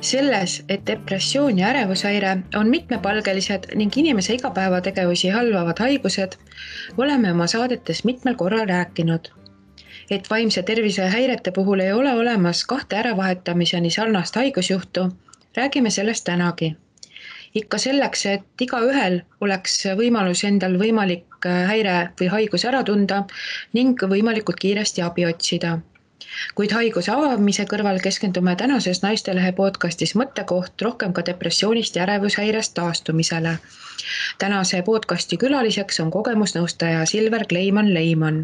Selles, et depressioon ja ärevushäire on mitmepalgelised ning inimese igapäevategevusi halvavad haigused, oleme oma saadetes mitmel korral rääkinud. Et vaimse tervise häirete puhul ei ole olemas kahte äravahetamise sarnast haigusjuhtu, räägime sellest tänagi. Ikka selleks, et igaühel oleks võimalus endal võimalik häire või haigus ära tunda ning võimalikult kiiresti abi otsida. Kuid haiguse avamise kõrval keskendume tänases Naistelehe podcastis mõttekoht rohkem ka depressioonist ja ärevushäirest taastumisele. Tänase podcasti külaliseks on kogemusnõustaja Silver Kleiman-Leiman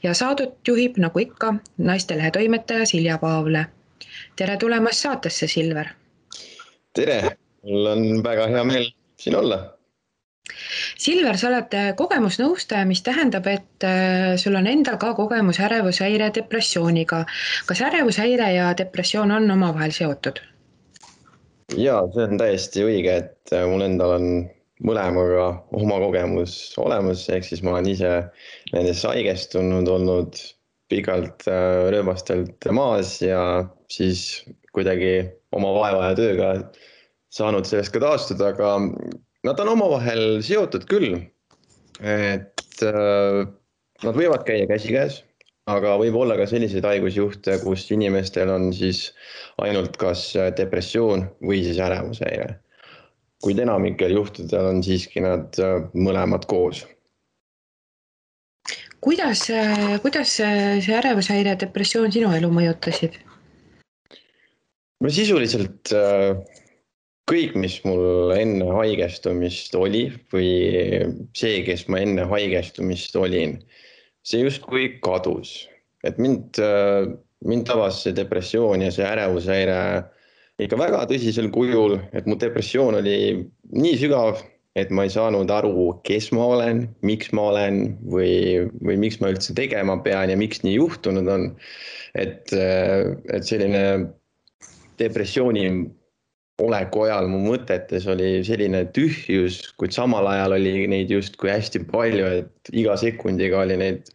ja saadet juhib nagu ikka Naistelehe toimetaja Silja Paavle. Tere tulemast saatesse, Silver! Tere! Mul on väga hea meel siin olla. Silver, sa oled kogemusnõustaja, mis tähendab, et sul on endal ka kogemus ärevushäire depressiooniga. Kas ärevushäire ja depressioon on omavahel seotud? Jaa, see on täiesti õige, et mul endal on mõlemaga oma kogemus olemas, ehk siis ma olen ise nendesse haigestunud, olnud pikalt rööbastelt maas ja siis kuidagi oma vaeva ja tööga saanud sellest ka taastuda, aga nad on omavahel seotud küll, et nad võivad käia käsikäes, aga võib olla ka selliseid haigusjuhte, kus inimestel on siis ainult kas depressioon või siis ärevushäire. Kuid enamikel juhtudel on siiski nad mõlemad koos. Kuidas see ärevushäire ja depressioon sinu elu mõjutasid? Sisuliselt kõik, mis mul enne haigestumist oli või see, kes ma enne haigestumist olin, see justkui kadus. Et mind tabas see depressioon ja see ärevushäire ikka väga tõsisel kujul, et mu depressioon oli nii sügav, et ma ei saanud aru, kes ma olen, miks ma olen või miks ma üldse tegema pean ja miks nii juhtunud on. Et selline depressiooni oleku ajal mu mõtetes oli selline tühjus, kuid samal ajal oli neid justkui hästi palju, et iga sekundiga oli neid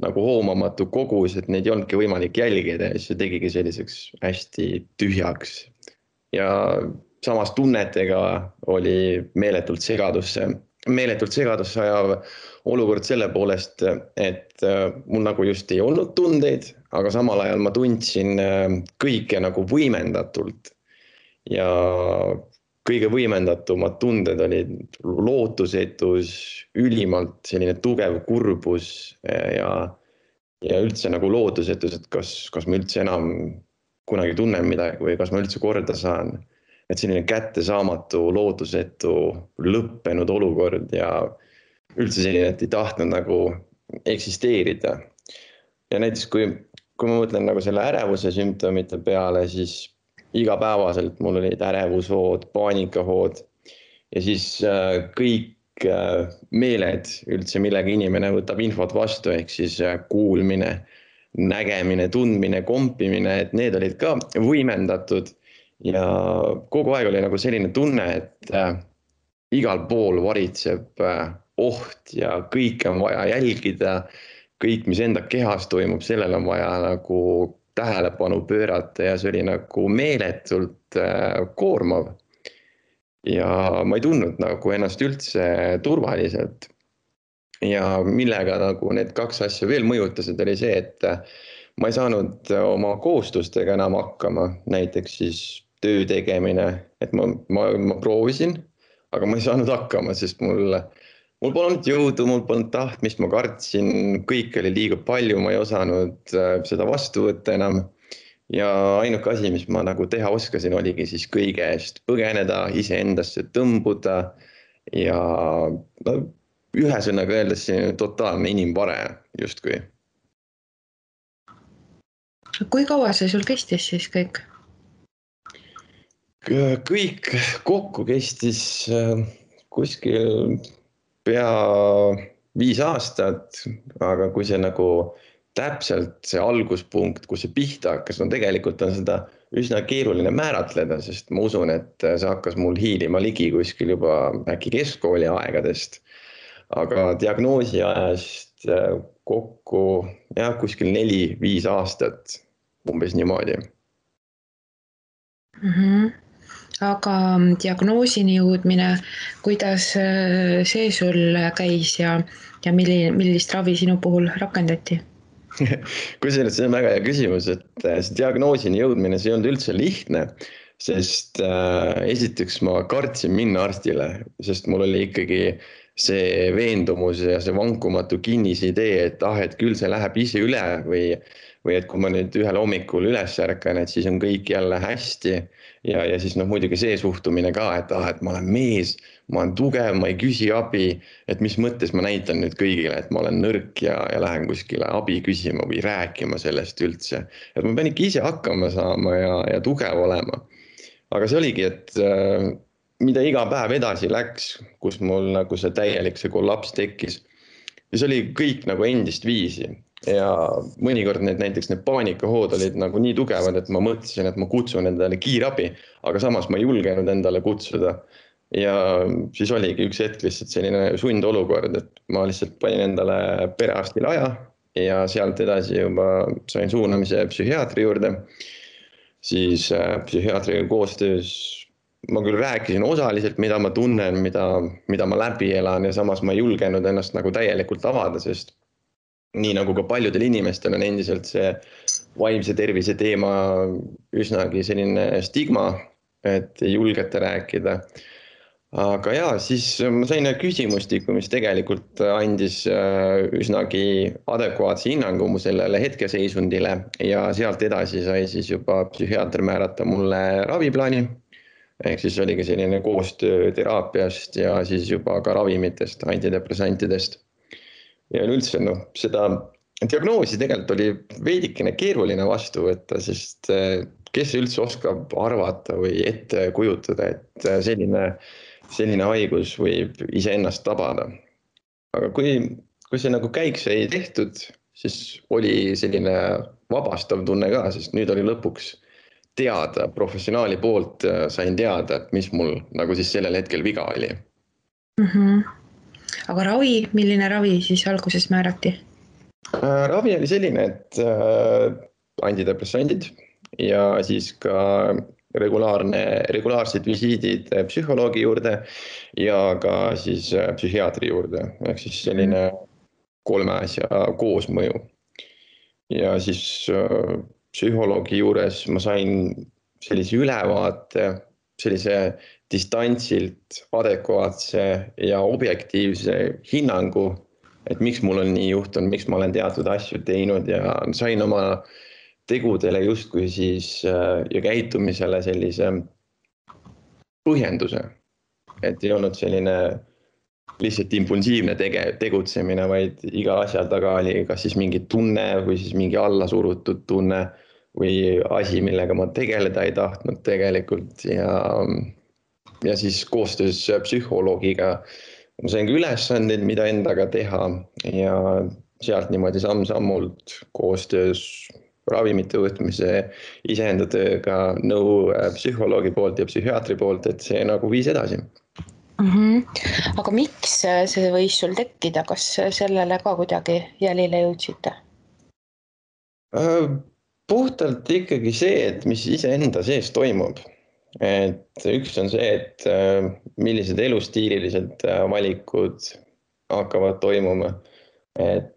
nagu hoomamatu kogus, et neid ei olnudki võimalik jälgida ja see tegigi selliseks hästi tühjaks. Ja samas tunnetega oli meeletult segadusse ajav olukord selle poolest, et mul nagu just ei olnud tundeid, aga samal ajal ma tundsin kõike nagu võimendatult. Ja kõige võimendatumad tunded olid lootusetus, ülimalt selline tugev kurbus ja üldse nagu lootusetus, et kas ma üldse enam kunagi tunnen midagi või kas ma üldse korda saan. Et selline kättesaamatu, lootusetu, lõppenud olukord ja üldse selline, et ei tahtnud nagu eksisteerida. Ja näiteks kui ma mõtlen nagu selle ärevuse sümptomite peale, siis igapäevaselt mul olid ärevushood, paanikahood ja siis kõik meeled üldse, millega inimene võtab infot vastu, ehk siis kuulmine, nägemine, tundmine, kompimine, et need olid ka võimendatud ja kogu aeg oli nagu selline tunne, et igal pool varitseb oht ja kõik on vaja jälgida, kõik, mis enda kehas toimub, sellel on vaja nagu tähelepanu pöörata ja see oli nagu meeletult koormav. Ja ma ei tundnud nagu ennast üldse turvaliselt. Ja millega nagu need kaks asja veel mõjutasid, oli see, et ma ei saanud oma kohustustega enam hakkama, näiteks siis töö tegemine, et ma proovisin, aga ma ei saanud hakkama, sest mul polnud jõudu, mul polnud tahtmist, ma kartsin, kõik oli liiga palju, ma ei osanud seda vastu võtta enam. Ja ainuke asi, mis ma nagu teha oskasin, oligi siis kõige eest põgeneda, iseendasse tõmbuda ja ühesõnaga öeldes totaalne inimvare justkui. Kui kaua see sul kestis siis kõik? Kõik kokku kestis kuskil pea 5 aastat, aga kui see nagu täpselt see alguspunkt, kus see pihta hakkas, tegelikult on seda üsna keeruline määratleda, sest ma usun, et see hakkas mul hiilima ligi kuskil juba äkki keskkooli aegadest, aga diagnoosi ajast kokku kuskil 4-5 aastat, umbes niimoodi. Mhm. Aga diagnoosini jõudmine, kuidas see sul käis ja millist ravi sinu puhul rakendati? Kusjuures see on väga hea küsimus, et see diagnoosini jõudmine, see ei olnud üldse lihtne, sest esiteks ma kartsin minna arstile, sest mul oli ikkagi see veendumus ja see vankumatu kinnisidee, et küll see läheb ise üle või et kui ma nüüd ühel hommikul üles ärkan, et siis on kõik jälle hästi. Ja siis muidugi see suhtumine ka, et ma olen mees, ma olen tugev, ma ei küsi abi, et mis mõttes ma näitan nüüd kõigile, et ma olen nõrk ja lähen kuskile abi küsima või rääkima sellest üldse. Et ma pean ikka ise hakkama saama ja tugev olema. Aga see oligi, et mida iga päev edasi läks, kus mul nagu see täielik see kollaps tekkis, siis oli kõik nagu endist viisi. Ja mõnikord näiteks need paanikahood olid nagu nii tugevad, et ma mõtlesin, et ma kutsun endale kiirabi, aga samas ma ei julgenud endale kutsuda. Ja siis oligi üks hetk lihtsalt selline sundolukord, et ma lihtsalt panin endale perearstile aja ja sealt edasi juba sain suunamise psühhiaatri juurde. Siis psühhiaatriga koostöös ma küll rääkisin osaliselt, mida ma tunnen, mida ma läbi elan ja samas ma ei julgenud ennast nagu täielikult avada, sest nii nagu ka paljudel inimestel on endiselt see vaimse tervise teema üsnagi selline stigma, et ei julgeta rääkida. Aga jaa, siis ma sain küsimustiku, mis tegelikult andis üsnagi adekvaatse hinnangu mu sellele hetkeseisundile ja sealt edasi sai siis juba psühhiaater määrata mulle raviplaani. Ehk siis oligi selline koostöö teraapiast ja siis juba ka ravimitest, antidepressantidest. Ja üldse seda diagnoosi tegelikult oli veidikene keeruline vastu võtta, sest kes üldse oskab arvata või ette kujutada, et selline haigus võib iseennast tabada. Aga kui see nagu käik sai tehtud, siis oli selline vabastav tunne ka, sest nüüd oli lõpuks teada, professionaali poolt sain teada, et mis mul nagu siis sellel hetkel viga oli. Aga ravi, milline ravi siis alguses määrati? Ravi oli selline, et antidepressandid ja siis ka regulaarsed visiidid psühholoogi juurde ja ka siis psühhiaatri juurde. Ehk siis selline 3 asja koosmõju. Ja siis psühholoogi juures ma sain sellise ülevaate, sellise distantsilt adekvaatse ja objektiivse hinnangu, et miks mul on nii juhtunud, miks ma olen teatud asju teinud ja sain oma tegudele justkui siis ja käitumisele sellise põhjenduse, et ei olnud selline lihtsalt impulsiivne tegutsemine, vaid iga asja taga oli kas siis mingi tunne või siis mingi allasurutud tunne või asi, millega ma tegeleda ei tahtnud tegelikult ja siis koostöös psühholoogiga ma sain ka ülesandeid, mida endaga teha ja sealt niimoodi samm-sammult koostöös ravimite võtmise iseenda tööga nõu psühholoogi poolt ja psühhiaatri poolt, et see nagu viis edasi. Aga miks see võis sul tekkida, kas sellele ka kuidagi jälile jõudsite? Puhtalt ikkagi see, et mis iseenda sees toimub. Et üks on see, et millised elustiililised valikud hakkavad toimuma, et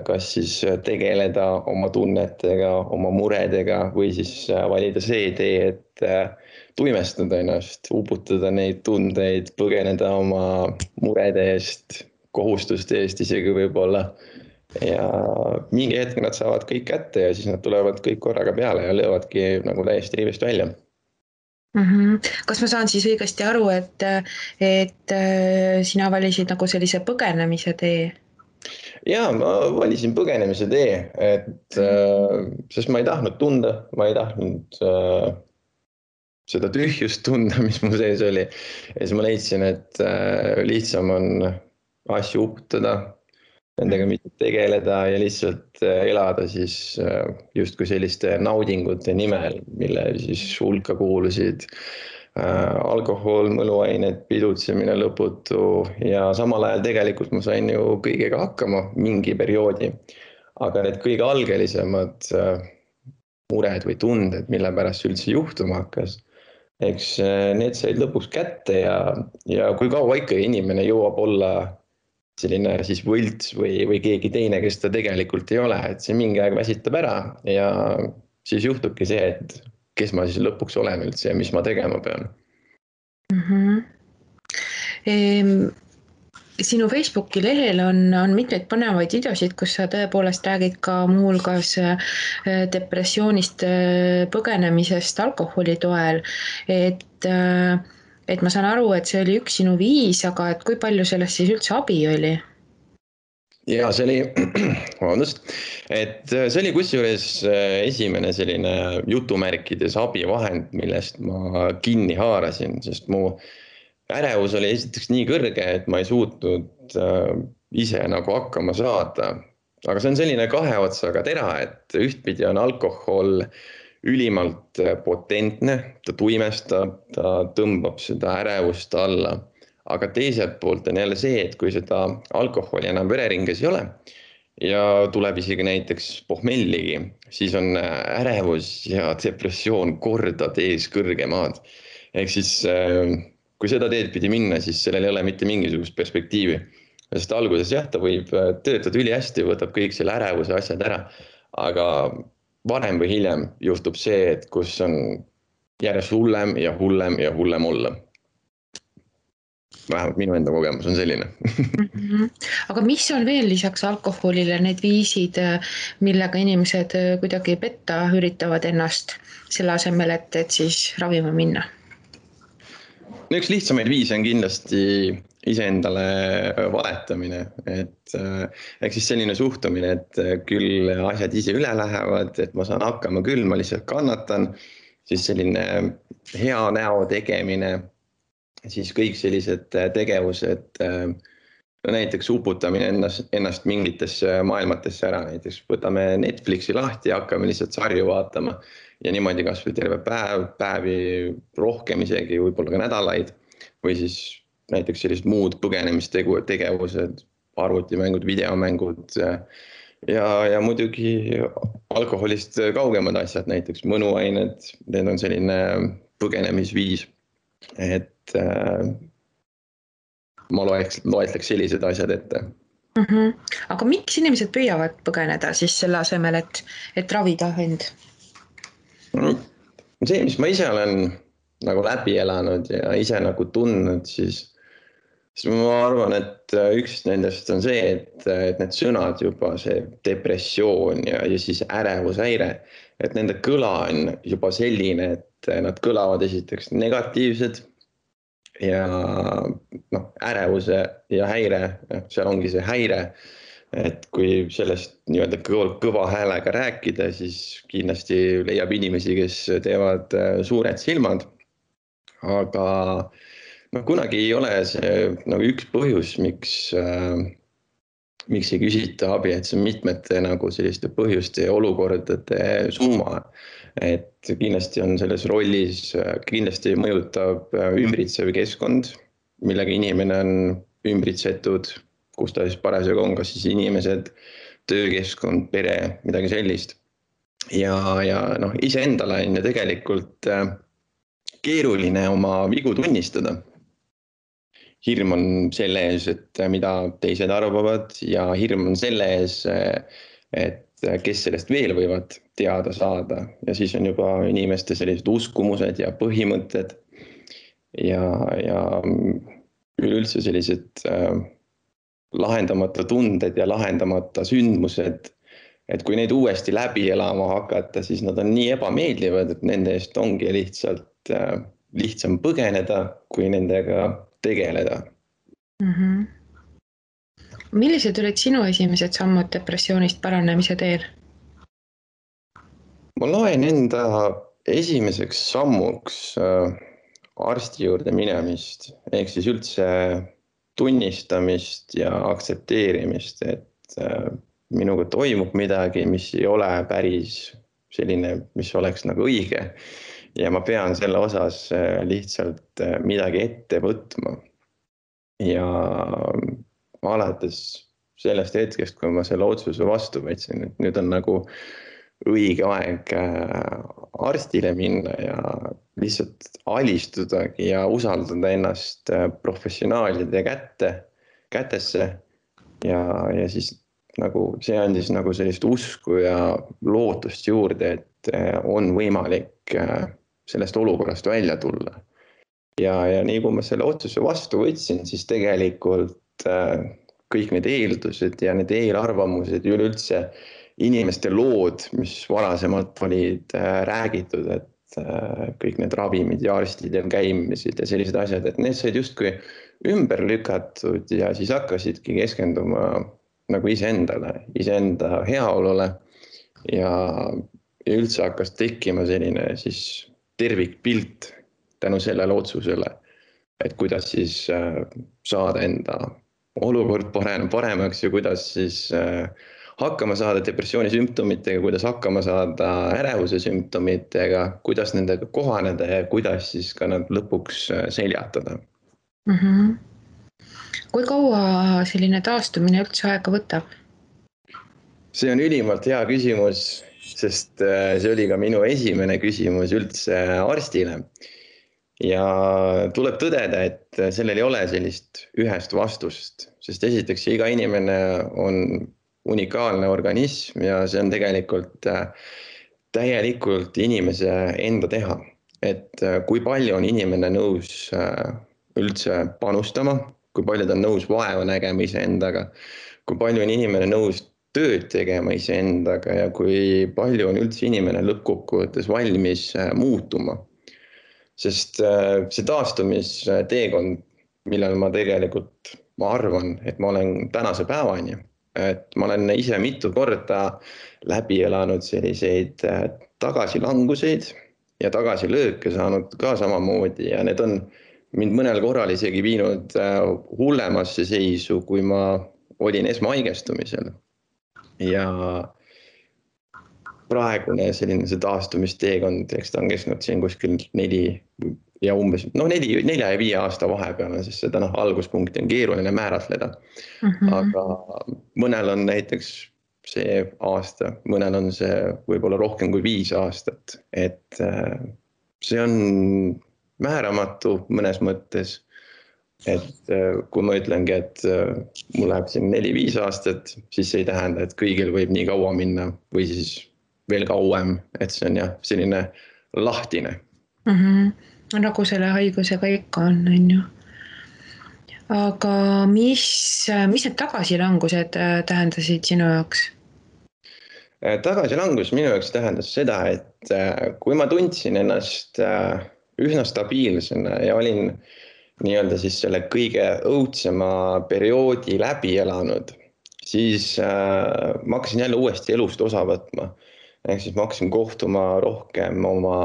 kas siis tegeleda oma tunnetega, oma muredega või siis valida see tee, et tuimestada ennast, uputada neid tundeid, põgeneda oma murede eest, kohustuste eest isegi võib-olla. Ja mingi hetk nad saavad kõik kätte ja siis nad tulevad kõik korraga peale ja löövadki nagu täiesti rivist välja. Kas ma saan siis õigesti aru, et sina valisid nagu sellise põgenemise tee? Jaa, ma valisin põgenemise tee, sest ma ei tahtnud tunda, ma ei tahtnud seda tühjust tunda, mis mu sees oli. Ja siis ma leidsin, et lihtsam on asju uputada, nendega mitte tegeleda ja lihtsalt elada siis justkui selliste naudingute nimel, mille siis hulka kuulusid alkohol, mõnuained, pidutsemine lõputu ja samal ajal tegelikult ma sain ju kõigega hakkama mingi perioodi. Aga need kõige algelisemad mured või tunded, mille pärast üldse juhtuma hakkas, eks need said lõpuks kätte ja kui kaua ikka inimene jõuab olla selline siis võlts või keegi teine, kes ta tegelikult ei ole, et see mingi aeg väsitab ära ja siis juhtubki see, et kes ma siis lõpuks olen üldse ja mis ma tegema pean. Sinu Facebooki lehel on mitmeid põnevaid videosid, kus sa tõepoolest räägid ka muuhulgas depressioonist põgenemisest alkoholi toel, et ma saan aru, et see oli üks sinu viis, aga et kui palju sellest siis üldse abi oli? Ja see oli, vabandust, et see oli kusjuures esimene selline jutumärkides abivahend, millest ma kinni haarasin, sest mu ärevus oli esiteks nii kõrge, et ma ei suutnud ise nagu hakkama saada. Aga see on selline kahe otsaga tera, et ühtpidi on alkohol ülimalt potentne, ta tuimestab, ta tõmbab seda ärevust alla. Aga teiselt poolt on jälle see, et kui seda alkoholi enam vereringes ei ole ja tuleb isegi näiteks pohmelligi, siis on ärevus ja depressioon kordad ees kõrgemad. Ehk siis kui seda teed pidi minna, siis sellel ei ole mitte mingisugust perspektiivi. Sest alguses jah, ta võib töötada üli hästi, võtab kõik selle ärevuse asjad ära, aga varem või hiljem juhtub see, et kus on järjest hullem ja hullem ja hullem olla. Vähemalt minu enda kogemus on selline. Aga mis on veel lisaks alkoholile need viisid, millega inimesed kuidagi petta üritavad ennast selle asemel, et siis ravima minna? Üks lihtsamaid viise on kindlasti iseendale valetamine, et ehk siis selline suhtumine, et küll asjad ise üle lähevad, et ma saan hakkama küll, ma lihtsalt kannatan, siis selline hea näo tegemine, siis kõik sellised tegevused, näiteks uputamine ennast mingitesse maailmatesse ära, näiteks võtame Netflixi lahti ja hakkame lihtsalt sarju vaatama ja niimoodi kas või terve päevi rohkem isegi, võib-olla ka nädalaid, või siis näiteks sellised muud põgenemistegevused, arvutimängud, videomängud ja muidugi alkoholist kaugemad asjad, näiteks mõnuained, need on selline põgenemisviis, et ma loetleks sellised asjad ette. Aga miks inimesed püüavad põgeneda siis selle asemel, et ravida end? See, mis ma ise olen nagu läbi elanud ja ise nagu tundnud, siis ma arvan, et üks nendest on see, et need sõnad juba, see depressioon ja siis ärevushäire, et nende kõla on juba selline, et nad kõlavad esiteks negatiivsed ja ärevuse ja häire, seal ongi see häire. Et kui sellest nii-öelda kõva häälega rääkida, siis kindlasti leiab inimesi, kes teevad suured silmad. Aga kunagi ei ole see nagu üks põhjus, miks ei küsita abi, et see on mitmete nagu selliste põhjuste ja olukordade summa. Et kindlasti on selles rollis, kindlasti mõjutab ümbritsev keskkond, millega inimene on ümbritsetud, kus ta siis parasjagu on, kas siis inimesed, töökeskkond, pere, midagi sellist. Ja iseendale on ju tegelikult keeruline oma vigu tunnistada. Hirm on selle ees, et mida teised arvavad ja hirm on selle ees, et kes sellest veel võivad teada saada. Ja siis on juba inimeste sellised uskumused ja põhimõtted ja üleüldse sellised lahendamata tunded ja lahendamata sündmused, et kui neid uuesti läbi elama hakata, siis nad on nii ebameeldivad, et nende eest ongi lihtsalt lihtsam põgeneda, kui nendega tegeleda. Millised olid sinu esimesed sammud depressioonist paranemise teel? Ma loen enda esimeseks sammuks arsti juurde minemist, ehk siis üldse tunnistamist ja aktsepteerimist, et minuga toimub midagi, mis ei ole päris selline, mis oleks nagu õige. Ja ma pean selle osas lihtsalt midagi ette võtma. Ja alates sellest hetkest, kui ma selle otsuse vastu võtsin, et nüüd on nagu õige aeg arstile minna ja lihtsalt alistudagi ja usaldada ennast professionaalide kätesse ja siis nagu see andis nagu sellist usku ja lootust juurde, et on võimalik sellest olukorrast välja tulla. Ja nii kui ma selle otsuse vastu võtsin, siis tegelikult kõik need eeldused ja need eelarvamused ja üleüldse inimeste lood, mis varasemalt olid räägitud, et kõik need ravimid ja arstidel käimised ja sellised asjad, et need said justkui ümber lükatud ja siis hakkasidki keskenduma nagu iseenda heaolule ja üldse hakkas tekkima selline siis tervikpilt tänu sellele otsusele, et kuidas siis saada enda olukord paremaks ja kuidas siis hakkama saada depressiooni sümptomitega, kuidas hakkama saada ärevuse sümptomitega, kuidas nendega kohaneda ja kuidas siis ka nad lõpuks seljatada. Kui kaua selline taastumine üldse aega võtab? See on ülimalt hea küsimus, sest see oli ka minu esimene küsimus üldse arstile. Ja tuleb tõdeda, et sellel ei ole sellist ühest vastust, sest esiteks iga inimene on unikaalne organism ja see on tegelikult täielikult inimese enda teha. Et kui palju on inimene nõus üldse panustama, kui palju ta on nõus vaeva nägema iseendaga, kui palju on inimene nõus tööd tegema iseendaga ja kui palju on üldse inimene lõppkokkuvõttes valmis muutuma. Sest see taastumisteekond, millel ma tegelikult, ma arvan, et ma olen tänase päevani, et ma olen ise mitu korda läbi elanud selliseid tagasilanguseid ja tagasilööke saanud ka samamoodi ja need on mind mõnel korral isegi viinud hullemasse seisu, kui ma olin esmahaigestumisel. Ja praegune selline see taastumisteekond, eks ta on kestnud siin kuskil 4 ja 4 ja 5 aasta vahepeal, sest seda alguspunkti on keeruline määratleda. Aga mõnel on näiteks see aasta, mõnel on see võib-olla rohkem kui 5 aastat, et see on määramatu mõnes mõttes. Et kui ma ütlengi, et mul läheb siin 4-5 aastat, siis see ei tähenda, et kõigil võib nii kaua minna või siis veel kauem, et see on jah, selline lahtine. Nagu selle haigusega ikka on ju. Aga mis need tagasilangused tähendasid sinu jaoks? Tagasilangus minu jaoks tähendas seda, et kui ma tundsin ennast üsna stabiilsena ja olin nii-öelda siis selle kõige õudsema perioodi läbi elanud, siis ma hakkasin jälle uuesti elust osa võtma. Ehk siis ma hakkasin kohtuma rohkem oma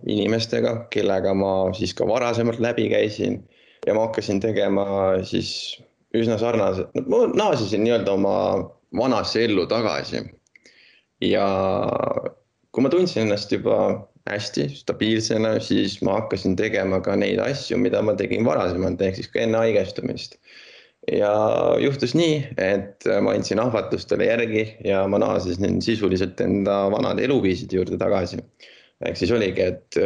inimestega, kellega ma siis ka varasemalt läbi käisin ja ma hakkasin tegema siis üsna sarnaselt, ma naasisin nii-öelda oma vanasse ellu tagasi. Ja kui ma tundsin ennast juba hästi stabiilsena, siis ma hakkasin tegema ka neid asju, mida ma tegin varasemalt, ehk siis ka enne haigestumist. Ja juhtus nii, et ma andsin ahvatlustele järgi ja ma naasisin sisuliselt enda vanade eluviisid juurde tagasi. Ehk siis oligi, et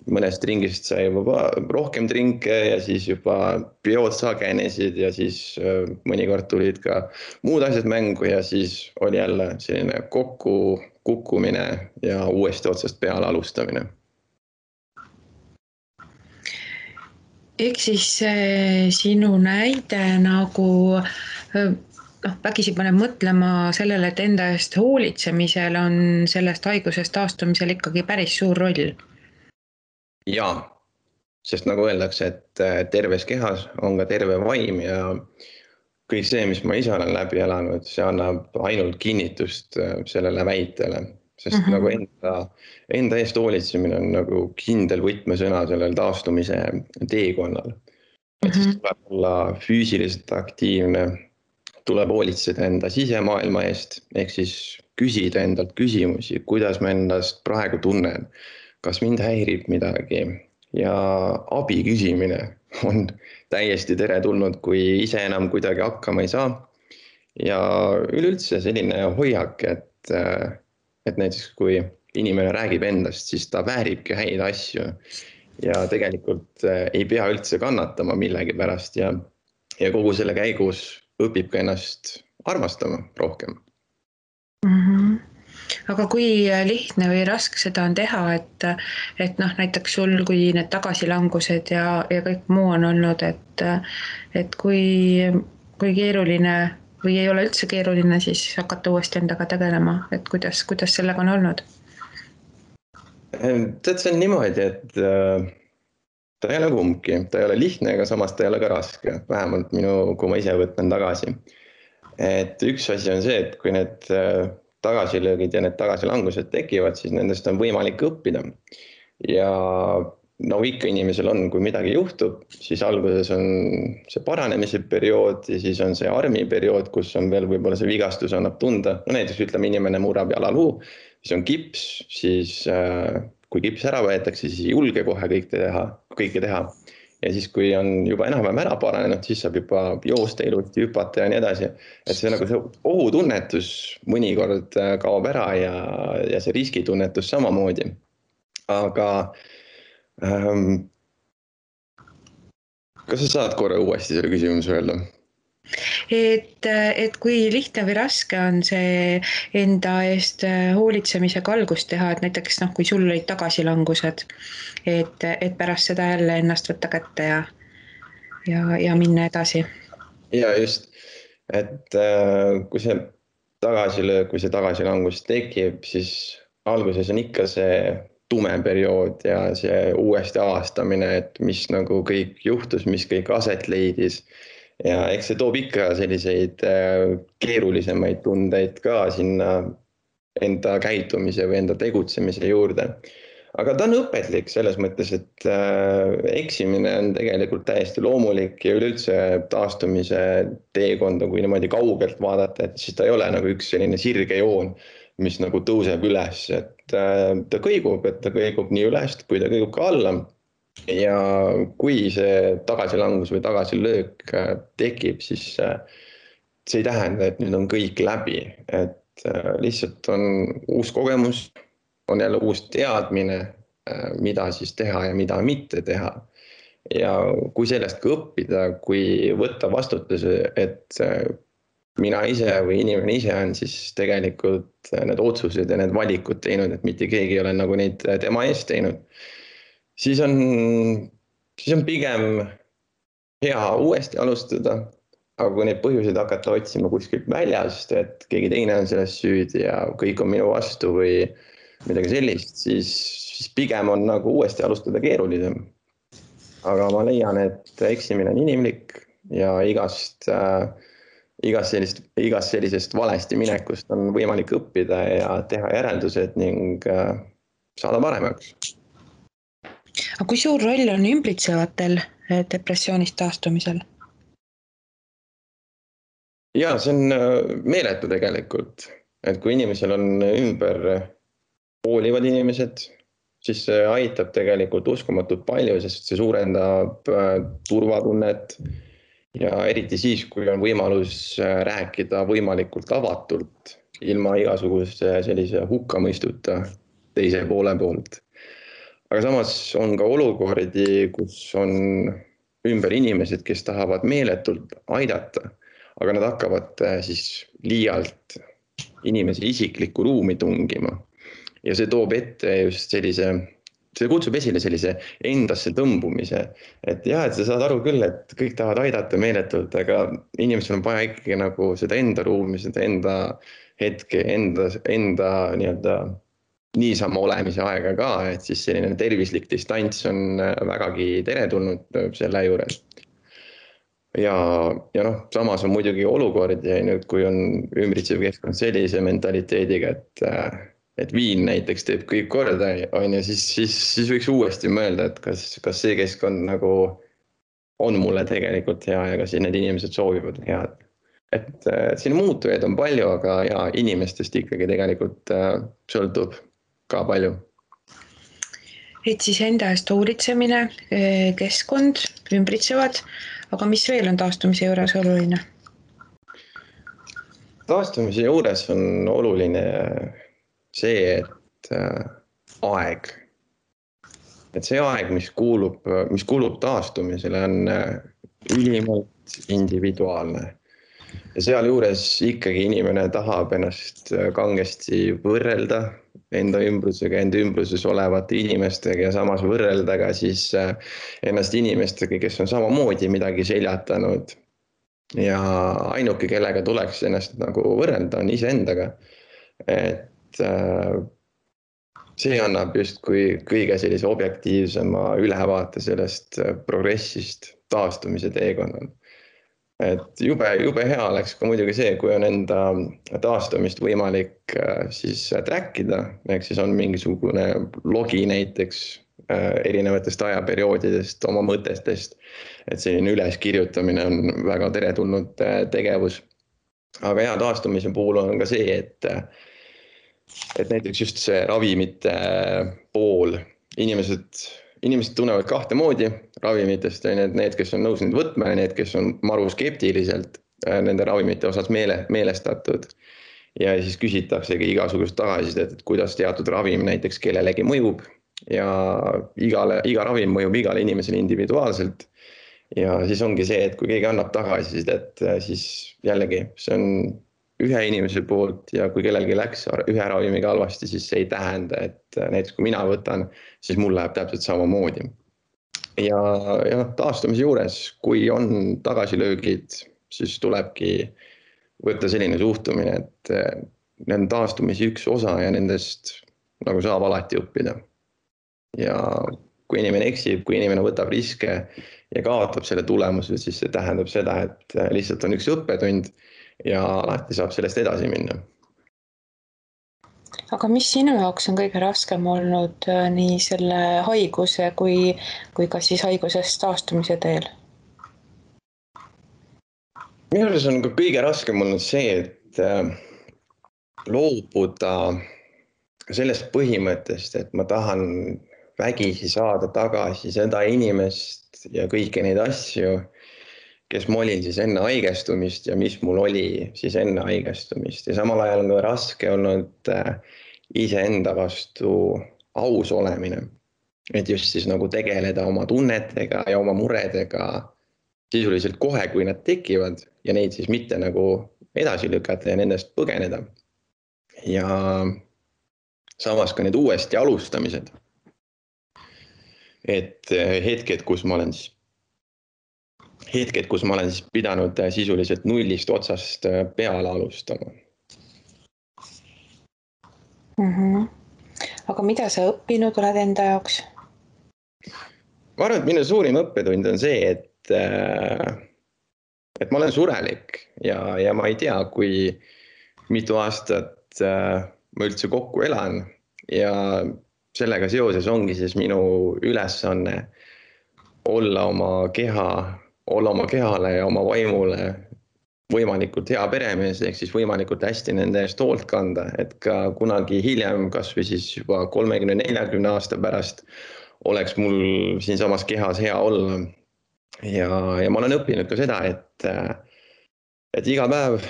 mõnest ringist sai juba rohkem trinke ja siis juba peod sagenesid ja siis mõnikord tulid ka muud asjad mängu ja siis oli jälle selline kukkumine ja uuesti otsast peale alustamine. Ehk siis sinu näide nagu vägisi paneb mõtlema sellele, et enda eest hoolitsemisel on sellest haigusest taastumisel ikkagi päris suur roll. Jaa, sest nagu öeldakse, et terves kehas on ka terve vaim ja kõik see, mis ma ise olen läbi elanud, see annab ainult kinnitust sellele väitele. Sest nagu enda eest hoolitsemine on nagu kindel võtmesõna sellel taastumise teekonnal. Et siis tuleb olla füüsiliselt aktiivne, tuleb hoolitseda enda sisemaailma eest, ehk siis küsida endalt küsimusi, kuidas ma endast praegu tunnen, kas mind häirib midagi ja abi küsimine on täiesti teretulnud, kui ise enam kuidagi hakkama ei saa. Ja üleüldse selline hoiak, et näiteks kui inimene räägib endast, siis ta vääribki häid asju ja tegelikult ei pea üldse kannatama millegi pärast ja kogu selle käigus õpib ka ennast armastama rohkem. Mhm. Aga kui lihtne või raske seda on teha, et noh, näiteks sul, kui need tagasilangused ja kõik muu on olnud, et kui keeruline või ei ole üldse keeruline siis hakata uuesti endaga tegelema, et kuidas sellega on olnud? Tead, see on niimoodi, et ta ei ole kumbki, ta ei ole lihtne, aga samas ta ei ole ka raske, vähemalt kui ma ise võtan tagasi. Et üks asi on see, et kui need tagasilöögid ja need tagasilangused tekivad, siis nendest on võimalik õppida. Ja nagu ikka inimesel on, kui midagi juhtub, siis alguses on see paranemise periood ja siis on see armiperiood, kus on veel võib-olla see vigastus annab tunda. No näiteks ütleme, inimene murrab jalaluu, siis on kips, siis kui kips ära võetakse, siis ei julge kohe kõike teha. Ja siis, kui on juba enam-vähem ära paranenud, siis saab juba joosta ilusti, hüpata ja nii edasi. Et see nagu see ohutunnetus mõnikord kaob ära ja see riskitunnetus samamoodi. Aga kas sa saad korra uuesti selle küsimuse öelda? Et kui lihtne või raske on see enda eest hoolitsemisega algust teha, et näiteks noh, kui sul olid tagasilangused, et pärast seda jälle ennast võtta kätte ja minna edasi. Ja just, et kui see tagasilöök või see tagasilangus tekib, siis alguses on ikka see tume periood ja see uuesti avastamine, et mis nagu kõik juhtus, mis kõik aset leidis. Ja eks see toob ikka selliseid keerulisemaid tundeid ka sinna enda käitumise või enda tegutsemise juurde. Aga ta on õpetlik selles mõttes, et eksimine on tegelikult täiesti loomulik ja üleüldse taastumise teekonda, kui niimoodi kaugelt vaadata, et siis ta ei ole nagu üks selline sirge joon, mis nagu tõuseb üles, et ta kõigub nii üles, kui ta kõigub ka alla. Ja kui see tagasilangus või tagasilöök tekib, siis see ei tähenda, et nüüd on kõik läbi, et lihtsalt on uus kogemus, on jälle uus teadmine, mida siis teha ja mida mitte teha. Ja kui sellest ka õppida, kui võtta vastutuse, et mina ise või inimene ise on siis tegelikult need otsused ja need valikud teinud, et mitte keegi ei ole nagu neid tema eest teinud, siis on pigem hea uuesti alustada. Aga kui neid põhjuseid hakata otsima kuskilt väljast, et keegi teine on selles süüdi ja kõik on minu vastu või midagi sellist, siis pigem on nagu uuesti alustada keerulisem. Aga ma leian, et eksimine on inimlik ja igast sellisest valesti minekust on võimalik õppida ja teha järeldused ning saada paremaks. Aga kui suur roll on ümbritsevatel depressioonist taastumisel? Ja see on meeletu tegelikult, et kui inimesel on ümber hoolivad inimesed, siis see aitab tegelikult uskumatult palju, sest see suurendab turvatunnet ja eriti siis, kui on võimalus rääkida võimalikult avatult, ilma igasuguse sellise hukkamõistuta teise poole poolt. Aga samas on ka olukordi, kus on ümber inimesed, kes tahavad meeletult aidata, aga nad hakkavad siis liialt inimese isiklikku ruumi tungima. Ja see toob ette just see kutsub esile sellise endasse tõmbumise. Et jah, et sa saad aru küll, et kõik tahavad aidata meeletult, aga inimesel on vaja ikkagi nagu seda enda ruumi, seda enda hetke, enda nii-öelda niisama olemise aega ka, et siis selline tervislik distants on vägagi teretulnud selle juures. Ja noh, samas on muidugi olukord ja nüüd, kui on ümbritsev keskkond sellise mentaliteediga, et viin näiteks teeb kõik korda, siis võiks uuesti mõelda, et kas see keskkond nagu on mulle tegelikult hea ja kas need inimesed soovivad head. Et siin muutujaid on palju, aga ja inimestest ikkagi tegelikult sõltub ka palju. Et siis enda eest hoolitsemine, keskkond, ümbritsevad, aga mis veel on taastumise juures oluline? Taastumise juures on oluline see, et aeg. et see aeg, mis kulub taastumisele, on ülimalt individuaalne. Ja sealjuures ikkagi inimene tahab ennast kangesti võrrelda enda ümbrusega, enda ümbruses olevate inimestega ja samas võrrelda ka siis ennast inimestega, kes on samamoodi midagi seljatanud. Ja ainuke, kellega tuleks ennast nagu võrrelda, on iseendaga. Et see annab justkui kõige sellise objektiivsema ülevaate sellest progressist taastumise teekonnal. Et jube hea oleks ka muidugi see, kui on enda taastumist võimalik siis trackida, ehk siis on mingisugune logi näiteks erinevatest ajaperioodidest, oma mõtetest, et selline üleskirjutamine on väga teretulnud tegevus. Aga hea taastumise puhul on ka see, et näiteks just see ravimite pool, inimesed tunnevad kahte moodi ravimitest, need, kes on nõus neid võtma ja need, kes on maru skeptiliselt nende ravimite osas meelestatud. Ja siis küsitaksegi igasugust tagasisidet, et kuidas teatud ravim näiteks kellelegi mõjub ja iga ravim mõjub igale inimesele individuaalselt. Ja siis ongi see, et kui keegi annab tagasisidet, siis jällegi see on ühe inimese poolt ja kui kellelgi läks ühe ravimiga halvasti, siis see ei tähenda, et näiteks kui mina võtan, siis mul läheb täpselt samamoodi. Ja taastumise juures, kui on tagasilöögid, siis tulebki võtta selline suhtumine, et need on taastumise üks osa ja nendest nagu saab alati õppida. Ja kui inimene eksib, kui inimene võtab riske ja kaotab selle tulemusel, siis see tähendab seda, et lihtsalt on üks õppetund ja alati saab sellest edasi minna. Aga mis sinu jaoks on kõige raskem olnud nii selle haiguse kui ka siis haigusest taastumise teel? Minu arvates on ka kõige raskem olnud see, et loobuda sellest põhimõttest, et ma tahan vägisi saada tagasi seda inimest ja kõiki neid asju, kes ma olin siis enne haigestumist ja mis mul oli siis enne haigestumist. Ja samal ajal on raske olnud iseenda vastu aus olemine. Et just siis nagu tegeleda oma tunnetega ja oma muredega sisuliselt kohe, kui nad tekivad ja neid siis mitte nagu edasi lükata ja nendest põgeneda. Ja samas ka need uuesti alustamised. Et hetked, kus ma olen pidanud sisuliselt nullist otsast peale alustama. Aga mida sa õppinud oled enda jaoks? Ma arvan, et minu suurim õppetund on see, et ma olen surelik ja ma ei tea, kui mitu aastat ma üldse kokku elan ja sellega seoses ongi siis minu ülesanne olla oma kehale ja oma vaimule võimalikult hea peremees, ehk siis võimalikult hästi nende eest hoolt kanda, et ka kunagi hiljem, kas või siis juba 30-40 aasta pärast oleks mul siinsamas kehas hea olla. Ja ma olen õppinud ka seda, et iga päev,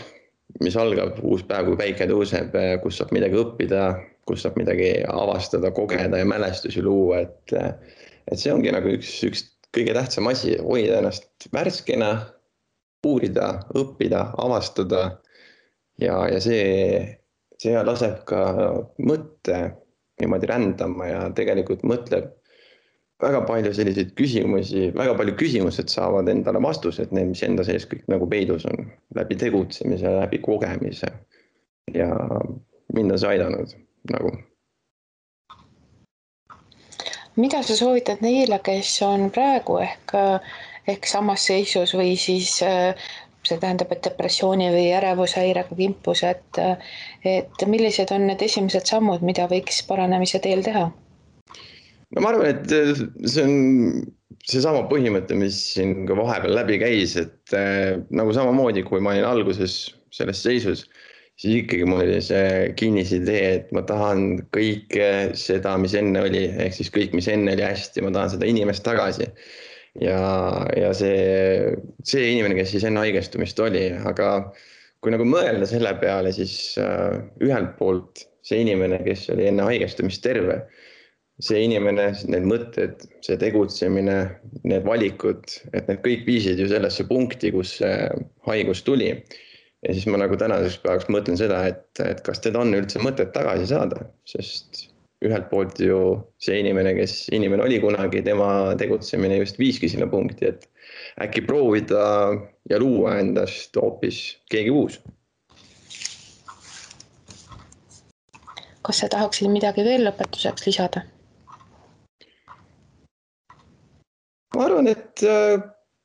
mis algab uus päev, kui päike tõuseb, kus saab midagi õppida, kus saab midagi avastada, kogeda ja mälestusi luua, et see ongi nagu üks kõige tähtsam asi, hoida ennast värskena, uurida, õppida, avastada ja see laseb ka mõtte niimoodi rändama ja tegelikult mõtleb väga palju selliseid küsimusi, väga palju küsimused saavad endale vastused, need, mis enda sees kõik nagu peidus on, läbi tegutsemise, läbi kogemise ja mind on see aidanud nagu. Mida sa soovitad neile, kes on praegu ehk samas seisus või siis see tähendab, et depressiooni või ärevushäirega kimpus, et millised on need esimesed sammud, mida võiks paranemise teel teha? No ma arvan, et see on seesama põhimõte, mis siin ka vahepeal läbi käis, et nagu samamoodi, kui ma olin alguses selles seisus, siis ikkagi mul oli see kinnisidee, et ma tahan kõike seda, mis enne oli, ehk siis kõik, mis enne oli hästi, ma tahan seda inimest tagasi. Ja see inimene, kes siis enne haigestumist oli, aga kui nagu mõelda selle peale, siis ühelt poolt see inimene, kes oli enne haigestumist terve, see inimene, need mõtted, see tegutsemine, need valikud, et need kõik viisid ju sellesse punkti, kus see haigus tuli. Ja siis ma nagu tänaseks päevaks mõtlen seda, et kas teda on üldse mõtet tagasi saada, sest ühelt poolt ju see inimene, kes inimene oli kunagi, tema tegutsemine just viiski sinna punkti, et äkki proovida ja luua endast hoopis keegi uus. Kas sa tahaksid midagi veel lõpetuseks lisada? Ma arvan, et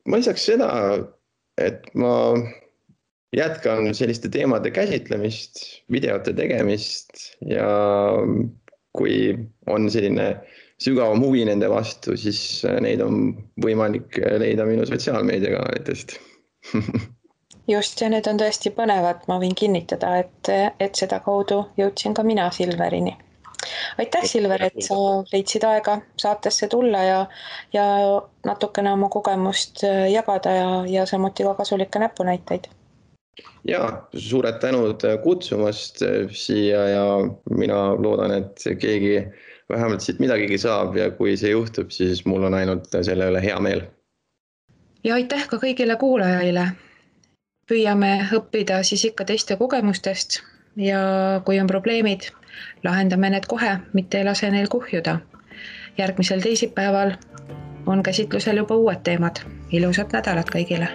ma lisaks seda, et ma jätkan selliste teemade käsitlemist, videote tegemist ja kui on selline sügavam huvi nende vastu, siis neid on võimalik leida minu sotsiaalmeediakanalitest. Just, ja need on tõesti põnevad, ma võin kinnitada, et seda kaudu jõudsin ka mina Silverini. Aitäh, Silver, et sa leidsid aega saatesse tulla ja natukene oma kogemust jagada ja samuti ka kasulikke näpunäiteid. Ja, suured tänud kutsumast siia ja mina loodan, et keegi vähemalt siit midagigi saab ja kui see juhtub, siis mul on ainult selle üle hea meel. Ja aitäh ka kõigile kuulajaile. Püüame õppida siis ikka teiste kogemustest ja kui on probleemid, lahendame need kohe, mitte ei lase neil kuhjuda. Järgmisel teisipäeval on käsitlusel juba uued teemad. Ilusat nädalat kõigile!